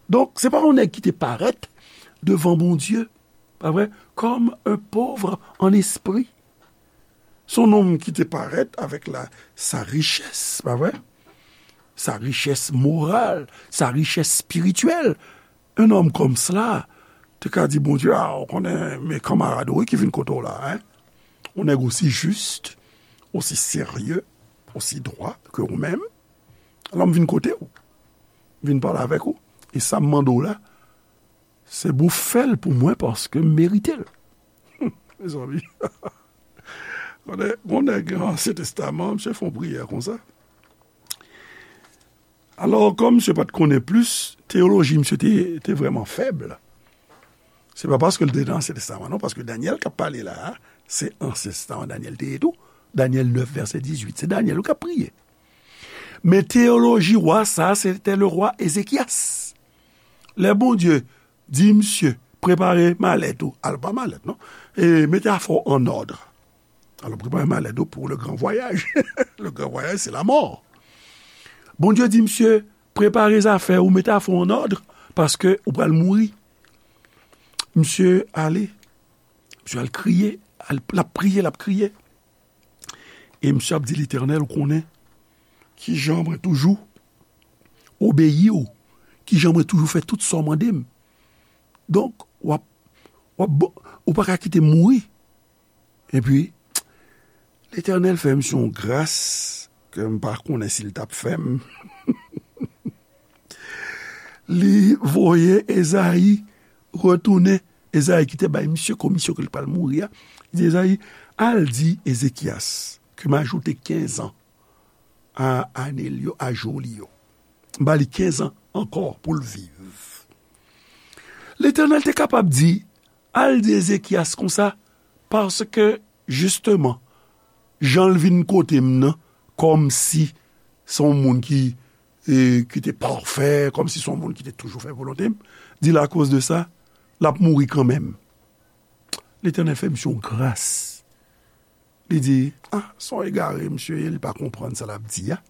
Donk, se pa yon nèg ki te parèt devan Bondye, pa vre, comme un pauvre en esprit. Se yon nonm ki te parèt avèk la, sa richès, pa vre? Sa richès moral, sa richès espirityèl. Un homme comme cela te ka di Bondye, "A, ou konnen, men kanmarad ou wi ki vin kote w la, hein? Yon nèg osi jis, osi serye, osi dwa ke ou menm. Alò, m vin kote w, m vin pale avèk ou. E sa m mande w la, se pou w fè l pou mwen paske m merite l." Mezanmi. Konnen, gon nèg nan Ansyen Testaman, misye fè yon priyè konsa. Alò, kòm misye pa t konnen plis, teyoloji misye te, te vrèman fèb. Se pa paske l te nan Ansyen Testaman, non, paske Danyèl k ap pale la a, se Ansyen Testaman Danyèl te ye tou. Danyèl nèf, vèsè dizuit, se Danyèl k ap priye. Men teyoloji wa sa a, se te le rwa Ezekyas. Lè Bondye di misye, "Prepare malèt ou," al pa malèt, non, e mete afè w an òd. Alò, prepare malèt ou pou le gran vwayaj. Le gran vwayaj, se lamò. Bondye di misye, "Prepare zafè ou, mete afè w an òd, paske ou pral mouri." Misye ale, misye al kriye, al, l ap priye, l ap kriye. E misye ap di Letènèl, "Ou konnen kijan mwen toujou obeyi w, kijan mwen toujou fè tout sa w mande m. Donk, w ap, w ap, ou pa ka kite m mouri." Epi, Letènèl fè misye yon gras ke m pa konnen si l t ap fè m. Li voye Ezayi retounen. Ezayi ki te bay misye komisyon ke l pral mouri a, li di Ezayi, "Al di Ezekyas ke m ajoute kenz an a ane l yo, a jou li yo. M ba li kenz an ankò pou l viv." Letènèl te kapab di, "Al di Ezekyas konsa, paske, jisteman, jan l vin kote m nan, kòmsi se yon moun ki, e, ki te pafè, kòmsi se yon moun ki te toujou fè volonte m, di l akoz de sa, l ap mouri kanmenm." Letènèl fè misye yon gras. Li di, "A, se yon egare misye ye, li pa konprann sa l ap di a."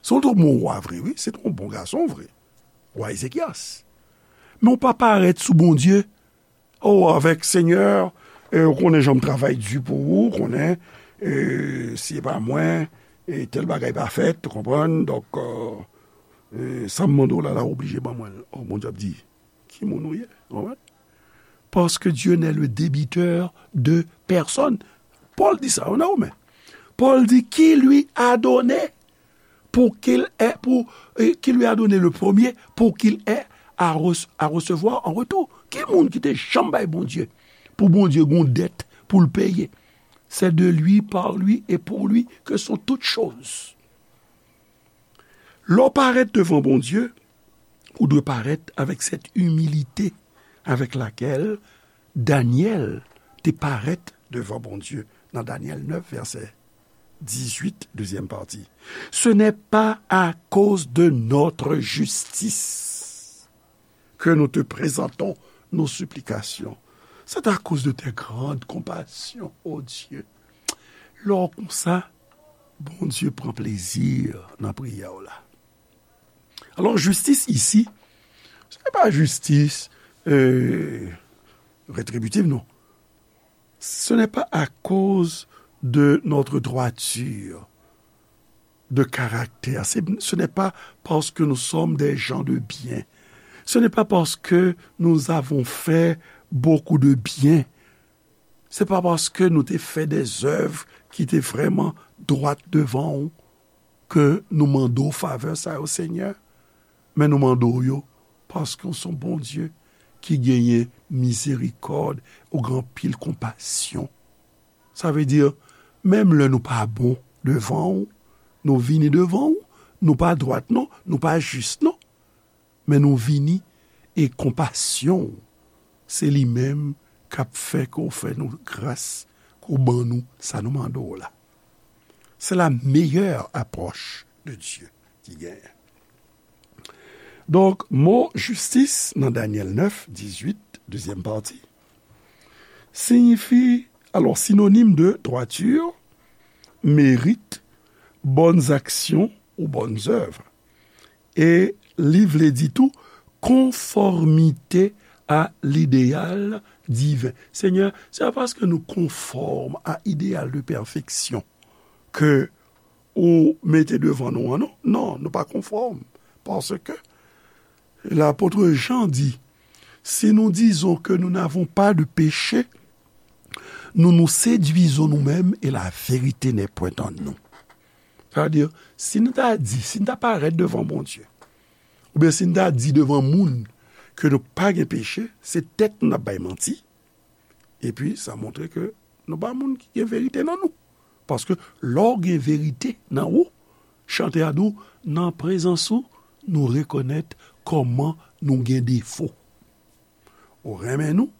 Se yon twòp bon wa vre, wi, se yon bon gason vre. Wa Ezekyas. Men w pa parèt sou Bondye, "O, avèk Senyè, e, ou konnen jan m travay di pou ou, ou konnen, e, si e pa mwen, e, tèl bagay pa fèt, ou konprann, donk, e, e, sa m mande w la, la oblije ban mwen l." O, Bondye ap di, "Ki moun ou ye?" Ou konprann? Parce que Dieu n'est le débiteur de personne. Pòl di sa, ou nan Women. Pòl di, "Qui lui a donné pour qu'il ait, pour, euh, qui lui a donné le premier, pour qu'il ait à, re- à recevoir en retour." Ki moun ki te janm bay Bondye, pou Bondye gon dèt pou l peye? C'est de lui, par lui et pour lui que sont toutes choses. Lè w parèt devan Bondye, ou dwe parèt avèk cette humilité avec laquelle Daniel te parèt devan Bondye nan Daniel nèf, vèsè dizuit, dezyèm pati. Ce n'est pas à cause de notre justice que nous te présentons nos supplications. C'est à cause de tes grandes compassions, ô Dieu. Lè w konsa, Bondye pran plezi nan priyè w la. Alò, jistis isi, se pa jistis, euh, retribitiv, non. Ce n'est pas à cause de notre droiture de caractère. C'est, ce n'est pas parce que nous sommes des gens de bien. Ce n'est pas parce que nous avons fait beaucoup de bien. Se pa paske nou te fè de zèv ki te vrèman dwat devan w ke nou mande w favè sa yo, Senyè, men nou mande w yo paske w se yon Bondye ki genyen mizerikòd, ou gen anpil konpasyon. Sa vle di, menm lè nou pa bon devan w, nou vini devan w, nou pa dwat non, nou pa jis non, men nou vini e konpasyon w, se li menm k ap fè ke w fè nou gras, ke w ban nou sa nou mande w la. C'est la meilleure approche de Dieu ki genyen. Donk, mo jistis nan Danyèl nèf, dizuit, dezyèm pati, siyifi, alò, sinonim de droiture, mérite, bonnes actions ou bonnes œuvres. E li vle di tou konfòmite a lideyal diven. Senyè, se pa paske nou konfòm a ideyal de pèfeksyon ke ou mete devan nou an, non. Non, nou pa konfòm. Paske lapot Jan di, si nous disons que nous n'avons pas de péché, nous nous séduisons nous-mêmes et la vérité n'est point en nous. Sa vle di, si nou ta di, si nou ta parèt devan Bondye, oubyen si nou ta di devan moun ke nou pa gen peche, se tèt nou n ap bay manti, epi sa montre ke nou pa moun ki gen verite nan nou. Paske lè w gen verite nan ou, chante a di w, nan prezans ou, nou rekonèt kòman nou gen defo. Ou renmen nou,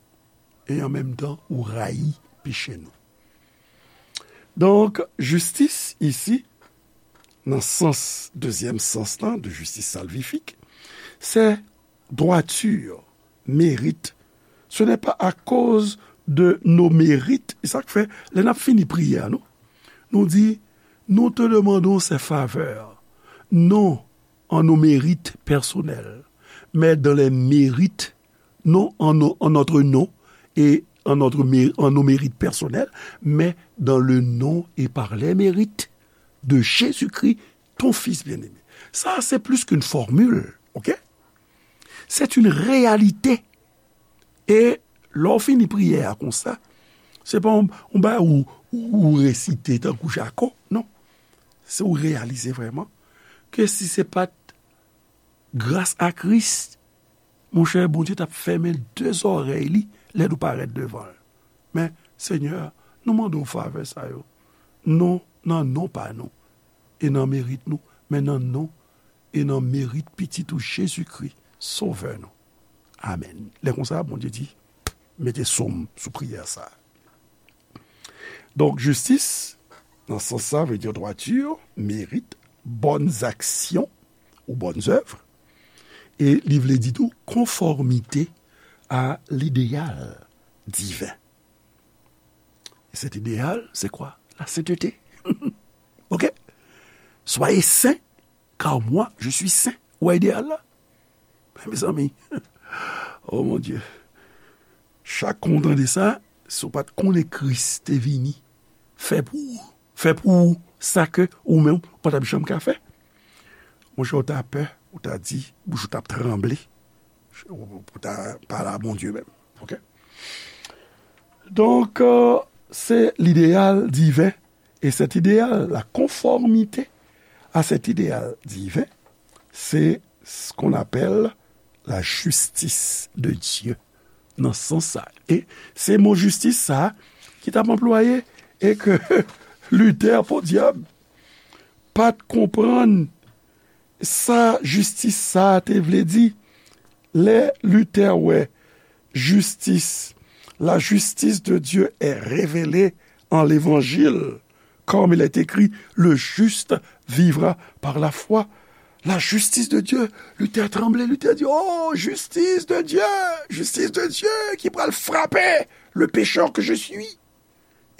e an menm tan, ou rayi peche nou. Donk, jistis isi, nan sans, dezyèm sans lan, de justice salvifique, c'est droiture, mérite. Ce n'est pas à cause de nos mérites. E sa k fè, lè n ap fini priyè a, nou, nou di, nous te demandons ces faveurs, non en nos mérites personnels, mais dans les mérites, non en, nos- en notre nom et en, notre, mé- en nos mérites personnels, mais dans le nom et par les mérites de Jésus-Christ, ton Fils bien-aimé. Sa, se plis ke yon fòmil, ok? C'est une réalité. E lè w fini priyè a konsa, se pa yon, yon bagay ou, ou, ou resite tankou Jako, non. Se ou reyalize vrèman ke si se pa t gras a Kris, monchè, Bondye t ap fèmen de zòrèy li lè nou parèt devan l. Men, Senyè, nou mande w favè sa yo. Non nan non pa nou, e nan merit nou, men nan non e nan merit Pitit ou Jezikri, Sovè nou. Amèn. Lè konsa, Bondye di, mete sou m sou priyè sa a. Donk, jistis, nan sans sa, vle di droiture, mérite, bonnes actions ou bonnes œuvres. E li vle di tou konfòmite a lideyal diven. E cet idéal, c'est quoi? La sainteté. Ok? Soyez saints, car moi, je suis saint. Ou wè ideyal la? Mezanmi, oh mon Dieu. Chak kou w tande sa, si w pa t konnen Kris te vini fè pou ou, fè pou ou sa ke ou menm ou pa t ap janm ka fè, monchè, ou ta pè, ou ta di, bouch ou t ap tranble, ou ta pale a Bondye menm. Ok? Donk, euh, se lideyal diven. E cet idéal, la conformité à cet idéal divin, c'est ce qu'on appelle la justice de Dieu. Nan sans sa. E se mo jistis sa ki t ap anplwaye e ke Luther, podyab, pa t konprann sa jistis sa a te vle di. Lè Luther wè jistis, la justice de Dieu est révélée en l'Évangile, comme il est écrit, le juste vivra par la foi. La justice de Dieu, Luther tranble, Luther di, oh, justice de Dieu, justice de Dieu ki pral frape le pécheur que je suis.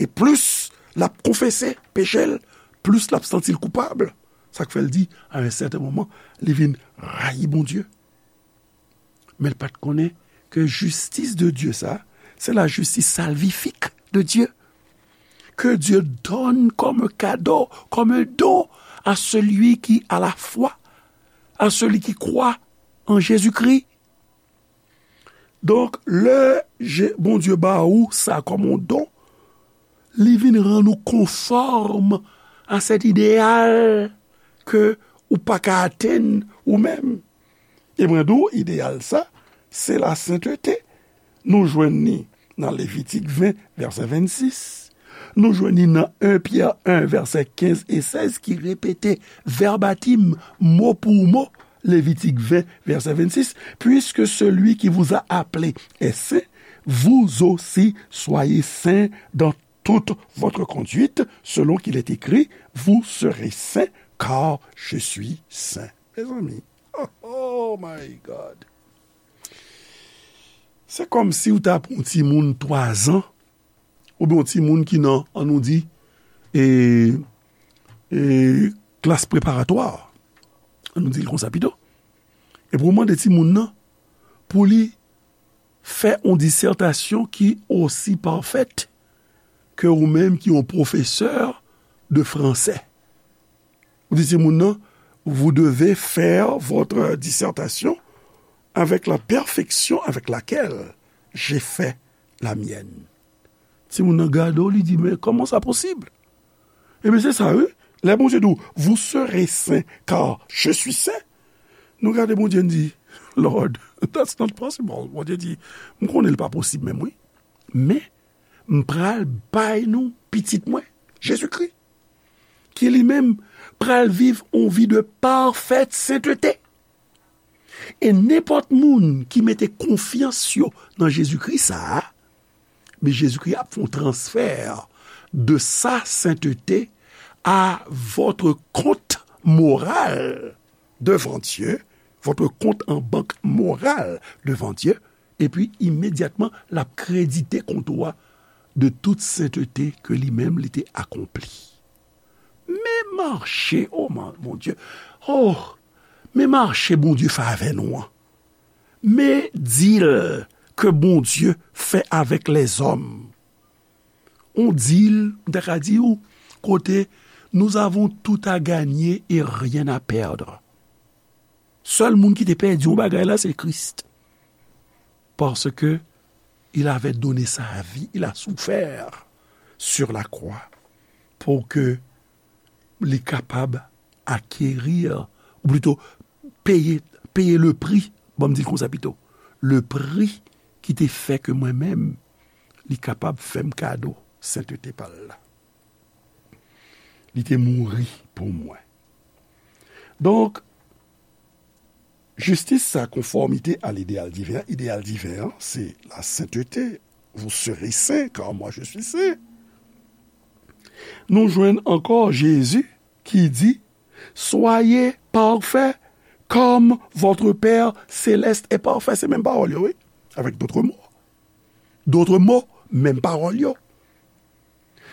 E plis l ap konfese peche l, plis l ap santi l koupab. Sa k fè l di, a yon sèten moman, li vin rayi Bondye. Men l pa t konnen ke jistis de Dye sa, se la justice salvifique de Dieu, que Dieu donne comme un cadeau, comme un don à celui qui a la foi, à celui qui croit en Jésus-Christ. Donk, lè Je- Bondye ba ou sa kòm yon don, li vin rann ou konfòm a sèt ideyal ke ou pa ka atenn ou menm. E mwen di w, ideyal sa, se lasentete. Nou jwenn ni nan Levitik ven, vèsè vennsis. Nou jwenn ni nan en Pyè en, vèsè kenz e sèz, ki repete vèbatim, mo pou mo, Levitik ven, vèsè vennsis, puisque celui qui vous a appelé est saint, vous aussi soyez saints dans toute votre conduite, selon qu'il est écrit, vous serez saints, car je suis saint. Mezanmi, oh, oh my God. Se kòmsi w ta pran yon timoun twazan, oubyen yon timoun ki nan, an nou di, e, e, klas preparatwa, an nou di l konsa pito. Epi w mande timoun nan pou li fè yon disètasyon ki osi pafèt ke ou menm ki yon pwofesè de fransè. Ou di timoun nan, vous devez faire votre dissertation avec la perfection avec laquelle j'ai fait la mienne. Timoun nan gade w, li di, men kòman sa posib? Ebyen, se sa, wi. Lè Bondye di w, vous serez saints, car je suis saint. Nou gade Bondye, n di, Lord, that's not possible. Bondye di, m konnen l pa posib menm, wi. Men, m pral bay nou pitit mwen, Jezikri, ki li menm pral viv yon vi de pafèt sentete. E nenpòt moun ki mete konfyans yo nan Jezikri sa a, men Jezikri ap fè yon transfè de sa sentete à votre compte moral devant Dieu, votre compte en banque moral devant Dieu, epi imedyatman, l ap kredite kont ou a de tout sentete ke li menm li te akonpli. Men mache, o Bondye, o, men mache Bondye fè avè nou an. Men dil ke Bondye fè avèk lèzòm. On dil, m ta ka di w, kote nous avons tout à gagner et rien à perdre. Sèl moun ki te pèdi yon bagay la, se Kris. Parce que il avait donné sa vie, il a souffert sur la croix pour que li kapab acquérir, ou plutôt payer, payer le prix, bon, m di l konsa pito, le prix ki te fè ke mwen menm, li kapab fè m kado sentete pa l la. Li te mouri pou mwen. Donk, jistis sa, konfòmite a lideyal diven an, ideyal diven an, se lasentete. Vous serez saints, car moi je suis saint. Nou jwenn ankò Jezi ki di, soyez parfaits comme votre Père céleste est parfait. Se menm pawòl yo, wi. Avec d'autres mots. D'autres mots, menm pawòl yo.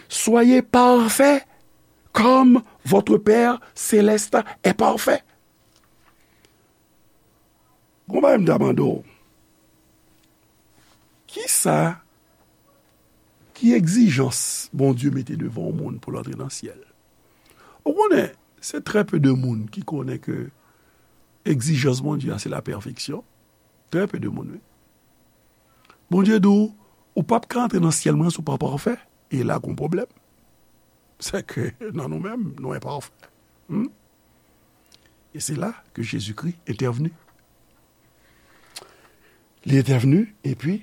Soyez parfaits comme votre Père céleste est parfait. Gon bagay m ta mande w. Kisa, ki egzijans Bondye mete devan yon moun pou l antre nan syèl? Ou konnen, se trè pe de moun ki konnen ke egzijans Bondye a se la pèfeksyon. Trè pe de moun, wi. Bondye di w, ou p ap ka antre nan syèl mwen si w pa pafè. E la gon pwoblèm. Se ke nan nou menm, nou enpafè. Hmm? E se la ke Jezikri entèvni. Li entèvni, epi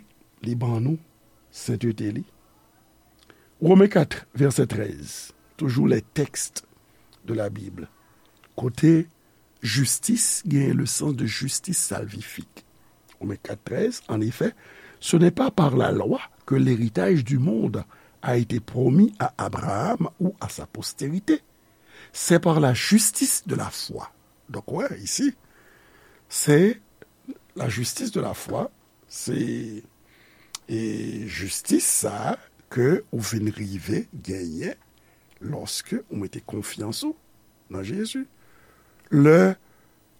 li ban nou sentete li. Romen kat, vèsè trèz, toujours les textes de la Bible. Kote jistis genyen le sens de justice salvifique. Romains quatre treize, en effet, ce n'est pas par la loi que l'héritage du monde a été promis à Abraham ou à sa postérité. C'est par la justice de la foi. Donk, wè, isi, se la justice de la foi, se e jistis sa a ke ou vin rive genyen lòske ou mete konfyans ou nan Jezi. Lè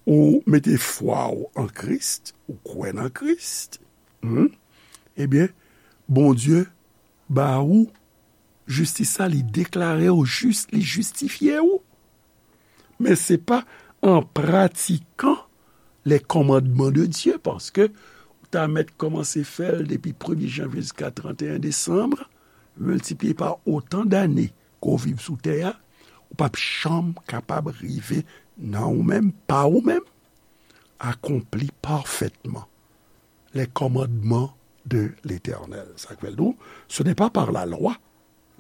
ou mete fwa ou an Kris, ou kwè nan Kris, hmm, ebyen, Bondye ba ou jistis sa, li deklare w jis, li jistifye w. Men se pa an pratikan les commandements de Dieu, paske ou ta mèt kòmanse fè l depi premye janvye jiska trannteyen desanm, miltipliye pa otan dane ke w viv sou tè a, ou p ap janm kapab rive nan ou menm, pa ou menm, accompli parfaitement les commandements de l'Éternel. Sa k fè l di w, ce n'est pas par la loi,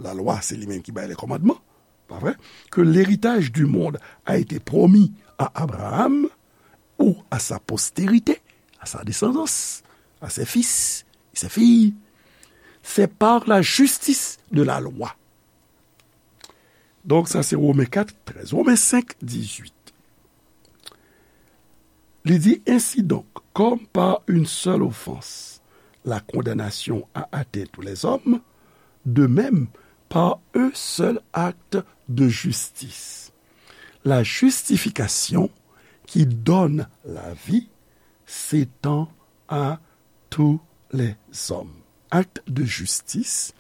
la loi, se li menm ki bay les commandements, pa vre? Que l'héritage du monde a été promis à Abraham ou à sa postérité, à sa descendance, à ses fils et ses filles. C'est par la justice de la loi. Donk, sa se Women kat trèz. Women senk dizuit. Li di, ainsi donc, comme par une seule offense, la condamnation a atteint tous les hommes, de même, par un seul acte de justice, la justification qui donne la vie s'étend à tous les hommes. Acte de justice,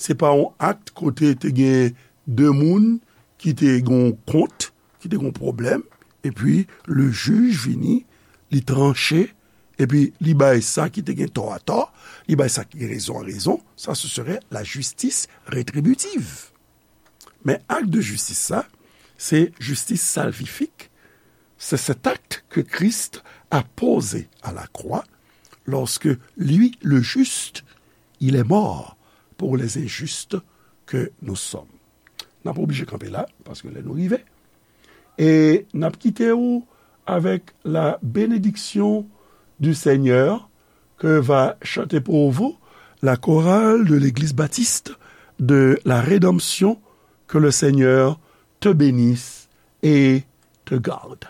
se pa yon akt kote te gen de moun ki te gen yon kont, ki te gen yon pwoblèm, epi le jij vini, li tranche, epi li bay sa ki te gen tò a tò, li bay sa ki gen rezon a rezon. Sa, ce serait la justice rétributive. Men akt de jistis sa, se jistis salvifik. C'est cet acte que Christ a posé à la croix lorsque lui, le juste, il est mort pour les injustes que nous sommes. N ap oblije kanpe la, paske lè nou rive. E n ap kite w avec la bénédiction du Seigneur que va chanter pour vous la chorale de l'Église baptiste de la Rédemption. Que le Seigneur te bénisse et te garde.